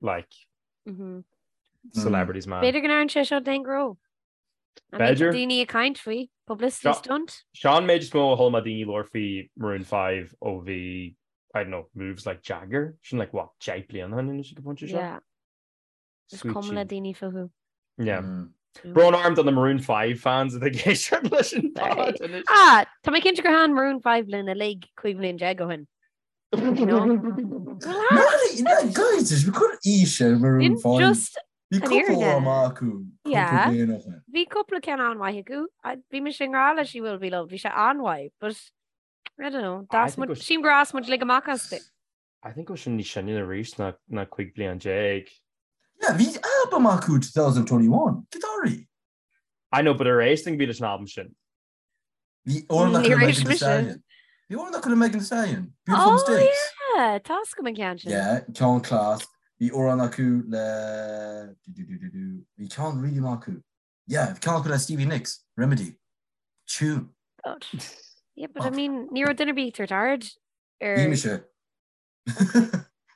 like mm -hmm. celebrities man. B'fhéidir go n-athraíonn sé seo d'aon ghnó. B'fhéidir. Daoine ag caint faoi, publicity stunt. Seo an méid is mó a chuala mé daoine labhairt faoi Maroon 5 ó bhí, I don't know, moves like Jagger, sin like what, 10 bliana ó shin anois ag an bpointe seo? Yeah. Is cuma le daoine fúthu. Yeah. Mm. Brón orm do na Maroon 5 fans atá ag éisteacht leis an pod anois. Ah, tá mé cinnte gur thaitin Maroon 5 linn uilig 15 bhliain ó shin. Guys, is cur aois ar Maroon 5. Just Bhí cúpla amach acu cúpla bliain ó shin. Bhí cúpla ceann an-mhaith acu. Bhí mise i ngrá le She Will Be Loved. Bhí sé an-mhaith, but I don't know. Sílim gur fhás muid uilig amach astu. I think go sin níos sine arís ná 15 bliain. Yeah, bhí album acu 2021. Gitáirí. I know, but ar éist duine ar bith leis an album sin. Bhí amhrán acu le Megan Thee Stallion. Bhí amhrán acu le Megan Thee Stallion. Beautiful oh, Mistakes. Yeah, tá a fhios agam an ceann sin. Yeah, ceann class. Bhí amhrán acu le bhí ceann really maith acu. Yeah, bhí ceann acu le Stevie Nicks, Remedy. Tune. God. Yeah, but I mean, ní raibh duine ar bith ag tabhairt aird ar Bhí mise.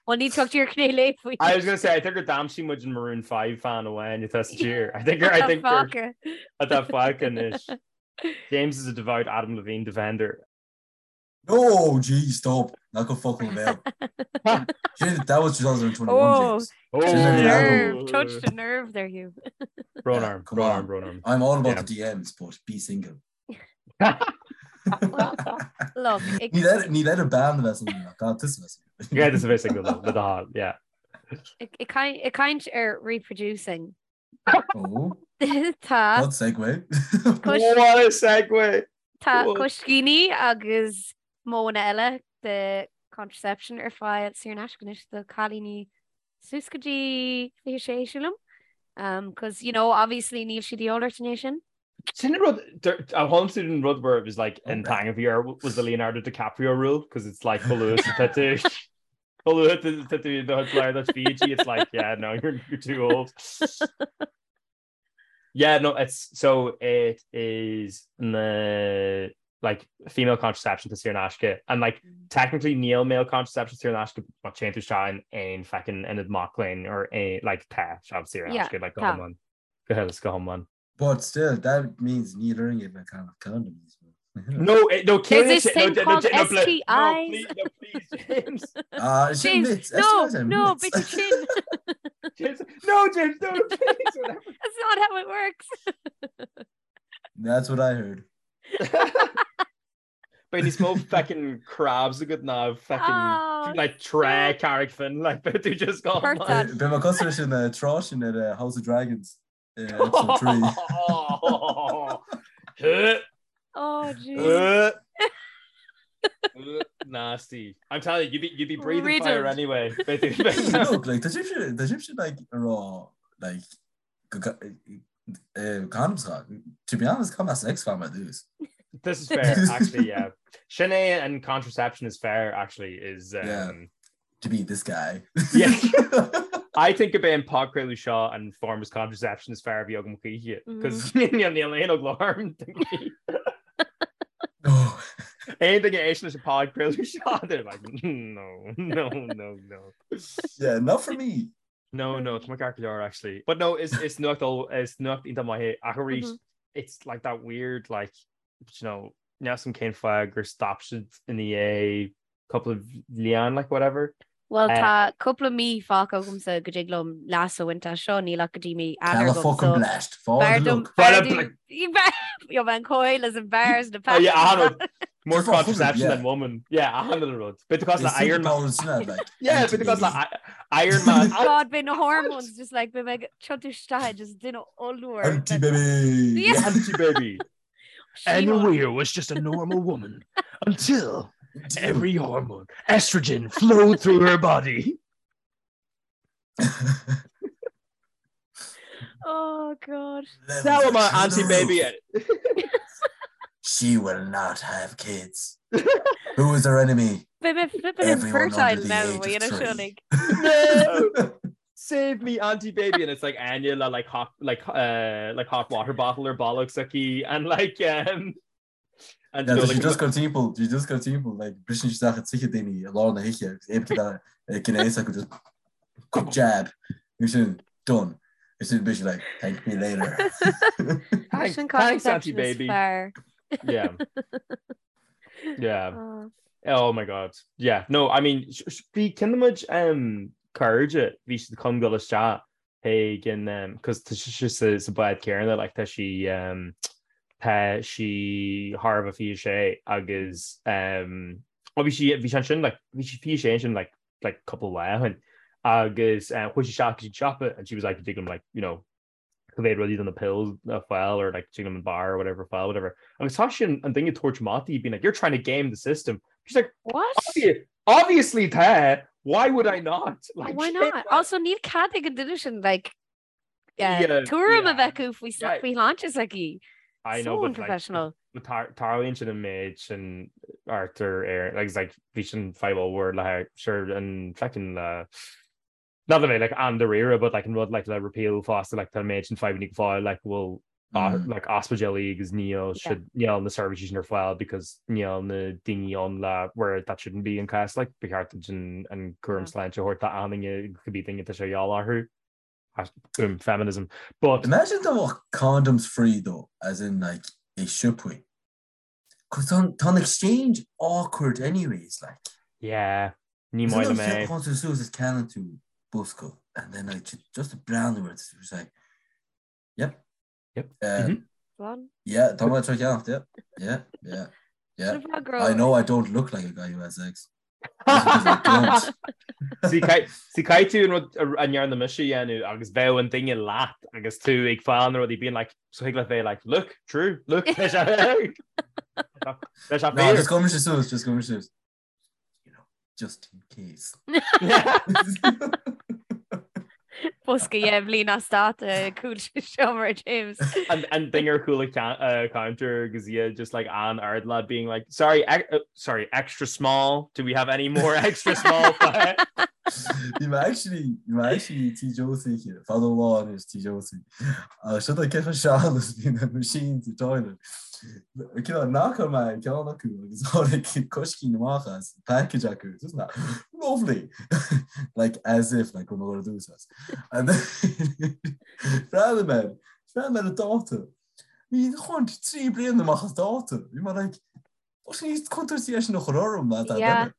Well, ní tugtar ar cné lé faoi. I was gonna say, I think gur d'aimsigh muid an Maroon 5 fan amháin atá sa tír. I think I think gur atá fágtha anois. James is a devout Adam Levine defender. No, gee, stop. Ná cuir focal i mo bhéal. That was 2021, oh, James. Oh, nerve, touched a nerve there, Hugh. Brón orm, brón orm, brón orm. I'm all about yeah. the DMs, but be single. Look, Ní le bean bheith single ach tusa bheith single. Yeah, tusa bheith single le do thoil, yeah. Ag caint ar reproducing. Oh. Tá. What segue. What a segue! Tá coiscíní agus modhanna eile de contraception ar fáil saor in aisce anois do cailíní suas go dtí 26 sílim. Um, cos, you know, obviously níl siad de dhíobháil ort i ndiaidh sin. Sin an rud, a tháinig tú den rud where it was like an teanga bhí ar was the Leonardo DiCaprio rule because it's like chomh luath is atá tú chomh luath tá tú do chuid duit Fiji it's like yeah no you're, you're too old. Yeah no it's so it is na like female contraception tá saor in aisce and like mm. technically níl male contraception saor in aisce má téann tú isteach in aon fucking ionad mac léinn or aon like tá sé saor in aisce like go hiomlán go huile is go hiomlán. But still, that means níl orainn a bheith ag ceannach condoms. No, eh, no, There's this thing called no, STIs. No, please, no, please, James. Ah, sin James, bit. no, STIs are no, bits. bit sin. James, no, James, no, please, whatever. That's not how it works. That's what I heard. Beidh níos mó fucking crabs agat ná fucking Oh, like trá Carraig Finn like beidh tú just gone. Hurt that. Beidh mé cosúil leis an eh, trá sin ar eh, House of Dragons. Episode 3. Oh, jeez. Nasty. I'm telling you, you'd be, you'd be breathing fire Riddled. anyway. Look, like, tá sibhse tá sibhse like ag rá like go ga- eh, condoms ga- To be honest, caithfidh mé sex fá mar dtús. This is fair, actually, yeah. Sin é an contraception is fair, actually, is um, Yeah. To be this guy. Yeah. I think gurb é an podchraoladh seo an form of contraception is fearr a bhí agam choíche, cos níl aon eagla orm. Oh. Aon duine a éisteann leis an podchraoladh seo, they're like, no, no, no, no. Yeah, not for me. No, no, tá mé ceart go leor actually. But no, is is nuacht is nuacht iontach maith é ach arís mm -hmm. it's like that weird like you know, níl a fhios agam cén fáth gur stop siad ina dhiaidh cúpla bliain like whatever. Well eh, tá cúpla mí fágtha agamsa go dtig liom leas a bhaint as seo níl ach go dtí mí Eanáir agam fucking blast. Jo an coil as an bears na oh, yeah, More contraception than woman. Yeah, achan rud. Bit cos le Iron Man. Yeah, bit cos le Iron Man. God beidh na hormones just like beidh mé ag tiontú isteach just duine ollmhór. Anti baby. Yeah. Anti baby. Anna Weir was just a normal woman until every hormone, estrogen, flowed through her body. Oh God. Now I'm an anti-baby. She will not have kids. Who is our enemy? Beidh mé flipping Everyone infertile under the now age má of dhéanamh 3. seo like. No! Save me auntie baby and it's like Anya le like hot like uh, like hot water bottle ar bolg s'aici and like um and Yeah, you know, tá sí like, just go timpeall, sí just go timpeall, like, briseann sí isteach i dtithe daoine i lár na hoíche agus éabta gnéas acu just quick jab, agus sin done. Agus sin beidh sí like, thank me later. thanks, Sin thanks auntie contraception is baby. fearr. Yeah. Yeah. Oh. Oh my god. Yeah. No, I mean, bhí cinnimid um, cairde, bhí siad chun dul isteach chuig an um, cos tá sí sa, sa bád céanna, like, tá sí um, tá sí thar a bheith 26 agus um, oh, bhí sí bhí sí ansin like, bhí sí 26 ansin like, like cúpla lá ó shin agus um, chuaigh sí isteach go dtí an siopa and she was like, tig liom like, you know, go bhféad rudaí do na pills a fáil or like tig liom an bar or whatever a fáil whatever. Agus tá sin an duine ag tabhairt amach di being like you're trying to game the system. She's like What? Obvi obviously tá why would I not? Like, Why not? Also níl cead ag an duine sin like Yeah, tuairim a yeah. bheith acu faoi Yeah. faoi shláinte s'aici. I So know, but like, unprofessional. but tarlaíonn sin an méid sin Arthur ar like, it's like bhí sin fadhb ollmhór le sure an feckin le Not that like an-dáiríre but like an rud like le repeal fosta like tá an méid sin fadhbanna go fóill like bhfuil mm. like ospidéalaí agus níl yeah. níl na seirbhísí sin ar fáil because níl na daoine ann le where that shouldn't be an cás like ba cheart an an cúram sláinte a thabhairt d'aon duine cibé duine atá sé de dhíobháil orthu. Boom, feminism. But imagine dá mbeadh condoms free though as in like i siopaí. Cos tá an exchange awkward anyways like. Yeah, ní maith liom é. Téann tú suas is ceannaíonn tú bosca and then like just ag breathnú air it's like yep. Yep. Um, mm-hmm. Yeah, tá mé tar cheannacht, yeah. Yeah, yeah. Yeah. I know I don't look like a guy who has sex. See caithfidh tú an rud a ndearna mise a dhéanamh agus bheadh an duine leat agus tú ag fáil na rudaí being like so thig leat bheith like look true look leis leis No, just gabhfaidh mise suas, just gabhfaidh mise suas. You know, just in case. Bosca dhe bhliain as dáta cúl seomra James. An an duine ar chúl an counter agus iad just like an-ard lad being like sorry uh, sorry extra small do we have any more extra small Bhí mé actually bhí mé actually Tí Josie fada lá anois Tí Josie. Agus seo ceithre sean is bhí na machines sa toilet. Cineál knockáil mé ceann acu agus tháinig coiscín amach as package acu. Just na lovely! Like as if like go raibh mé ag dul as. And then bhreathnaigh mé bhreathnaigh mé ar an dáta. Bhí chuint 3 bliana amach as dáta. Bhí mé like Tá sé níos contúirtí é sin a chur orm ná dá Yeah. duine.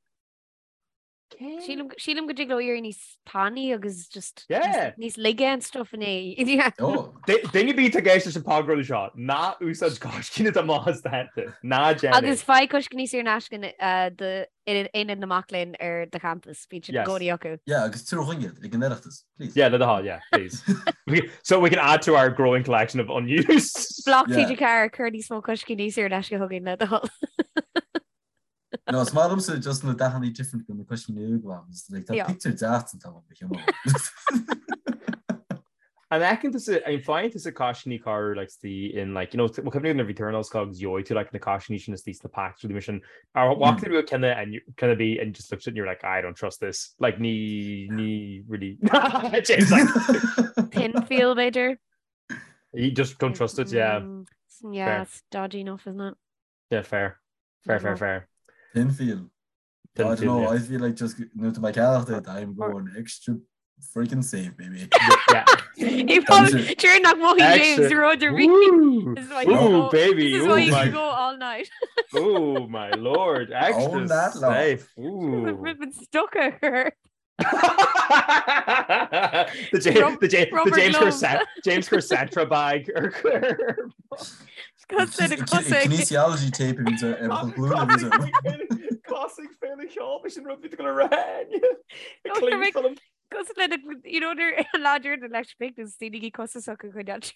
Sílim sílim go dtig leo éirí níos tanaí agus just Yeah. níos laige and stuff in é. Yeah. Oh. Duine ar bith atá ag éisteacht leis an podchraoladh seo, ná úsáid coiscín atá amach as dáta. Ná déan é. Agus faigh coiscíní saor in aisce uh, do Aonad na Mac Léinn ar do champas, bíonn siad i Yes. gcónaí acu. Yeah, agus tabhair chugainn iad ag an Oireachtas, please. Yeah, le do thoil, yeah, please. We- So we can add to our growing collection of unused. Block Yeah. TG4 cuir níos mó coiscíní saor in aisce chugainn le do thoil. No, is maith liomsa just na dathanna different go na coiscíní uaigh like tá Yeah. picture deas an t-am ba chiumá. An fheiceann tusa, an faigheann tusa coiscíní corruair like the in like you know well cuimhnigh nuair a bhí tú ar an ollscoil agus gheobhaidh tú like na coiscíní sin istigh sna packs rudaí mar sin ar bhfaca tú ceann and you kind of be and just looked at it and you're like I don't trust this like ní ní really James like Thin feel b'fhéidir. you just don't trust it yeah Mm, yeah, Fair. it's dodgy enough, isn't it? yeah fair fair fair fair Thin feel. Thin I don't feel, know, yeah. I feel like just nuair atá mé ag ceannacht é, I'm going extra freaking safe, baby. Yeah. He probably during nach mothaigh James Extra. rud ar bith. Ooh, This is why you ooh, go- baby. This is Ooh, why you my, can go all night. ooh, my lord. Extra Own that lot. safe. Ooh. Ribbon stuck her. the James, Rub- the James, the rubber James glove. Corset, James Corsetra bag. Or Kinesiology tape a bhíonns ar ar glúin a bhíonns ar. Classic féle cheol sin rud bhí go rá. No, Cos le you know ar láidir na leis big is daoine costasach a chuid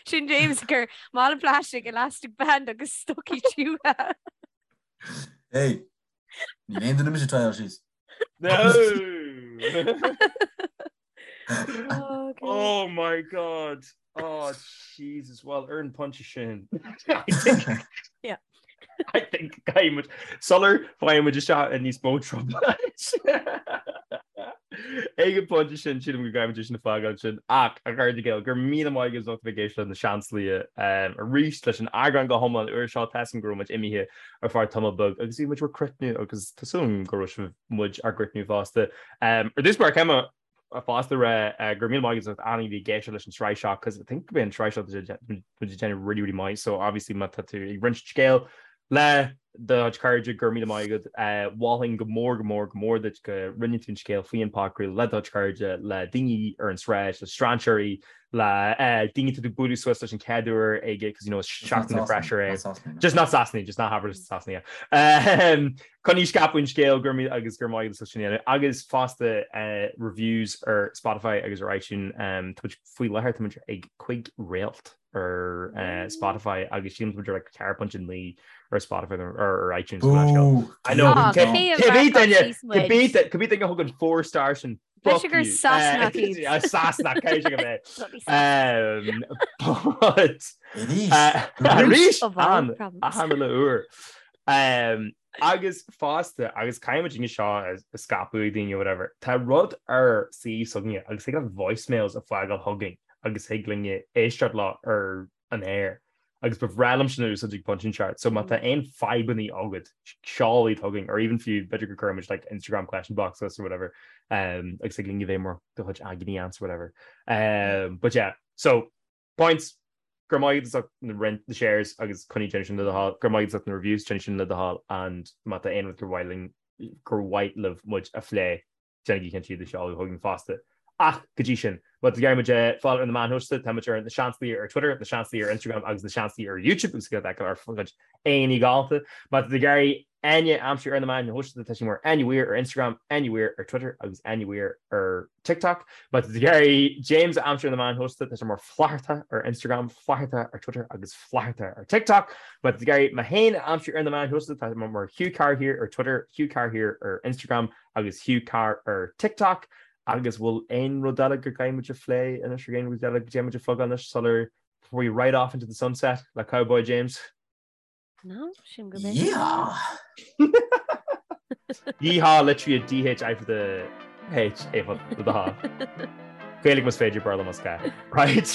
Sin James gur mála plastic elastic band agus stocaí tiútha. Hey, níl aon duine mise trial síos. No. Oh, God. Oh my God. Oh Jesus. Well, ar an bpointe sin. I think Yeah. I think caithfidh muid sular bhfaighidh muid isteach i níos mó trouble. Ag an bpointe sin sílim go gcaithfidh muid é sin a fhágáil ansin ach a chairde Gael go raibh míle maith agaibh as ucht a bheith ag éisteacht le Na Seansálaithe arís leis an eagrán go hiomlán úr seo. Tá a fhios agam go raibh muid imithe ar feadh tamall beag agus bhí muid bhur gcrothnú agus tá súil agam go raibh sibh muid ár gcrothnú fosta. Ar dtús báire caithfidh mé fosta rá go raibh míle maith agaibh as ucht achan duine a bhí ag éisteacht leis an tsraith seo cos I think go bhfuil an tsraith seo muid ag déanamh really really maith so obviously má tá tú ag roinnt scéal le do chuid cairde go raibh míle maith agat. Mholfainn go mór go mór go mór duit go roinnfidh tú an scéal faoi an podchraoladh le do chuid cairde, le daoine ar an sráid, le strainséirí, le daoine atá tú ag bualadh suas leis an chéad uair ag cos you know is seachtain na fresher é. Just not Sasanaigh, just ná habair leis na Sasanaigh. Coinnigh ag scaipeadh an scéil go raibh míle agus go raibh maith agat as ucht sin a dhéanamh. Agus fosta reviews ar Spotify agus ar iTunes. Tá muid faoi láthair tá muid ag 5 réalt ar Spotify agus sílim tá muid ar like 4.9 ar Spotify or ar iTunes. I know. Cibé duine cibé duine a thug an 4 star sin Fuck you. gur Sasanach iad. Sasanach cé go mbeidh. But Arís an achan uile uair. Agus fosta, agus caithfidh muid an seo a scaipeadh ag daoine or whatever, tá rud ar suíomh s'againne agus thig leat voicemails a fhágáil chugainn agus thig linne éisteacht leo ar an aer agus ba bhreá liom sin a úsáid ag pointe inteacht. So má tá aon fadhbanna agat, seol iad chugainn or even fiú b'fhéidir go gcuirfidh muid like Instagram question box suas or whatever um, agus thig linn a bheith mar do chuid agent ants or whatever. Um, but yeah, so points go raibh maith agat as ucht na roinnt na shares agus coinnigh déanamh sin le do thoil, go raibh maith agat as ucht na reviews déanamh sin le do thoil and má tá aon rud gur mhaith linn gur mhaith libh muid a phlé déanaigí cinnte iad a sheoladh chugainn fosta. Ach go dtí sin, má tá tú ag iarraidh muid a fháil ar na meáin shóisialta, tá muid ar Na Seansálaithe ar Twitter, Na Seansálaithe ar Instagram agus Na Seansálaithe ar YouTube agus go bhfeiceáil ár gcuid aghaidheanna galánta. Má tá tú ag iarraidh Áine a aimsiú ar na meáin shóisialta, tá sí mar Áine Weir ar Instagram, Áine Weir ar Twitter agus Áine Weir ar TikTok. Má tá tú ag iarraidh James a aimsiú ar na meáin shóisialta, tá sé mar Flatharta ar Instagram, Flatharta ar Twitter agus Flatharta ar TikTok. Má tá tú ag iarraidh mé féin a aimsiú ar na meáin shóisialta, tá mé mar Hugh Carr here ar Twitter, Hugh Carr here ar Instagram agus Hugh Carr ar TikTok. Agus bhfuil aon rud eile go gcaithfidh muid a phlé anois, ar aon rud eile go dtéann muid a phlugáil anois sular before we ride off into the sunset le Cowboy James? No, sin go bit. Yeehaw! Yeehaw litrithe D H I for the H A for the H. Gaeilge más féidir Béarla más gá. Right?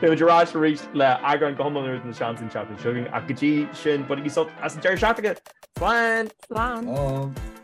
Beidh muid ar ais arís le eagrán go hiomlán úr de na Seansálaithe an tseachtain seo chugainn ach go dtí sin bainigí sult as an deireadh seachtaine! Slán! Slán! Slán!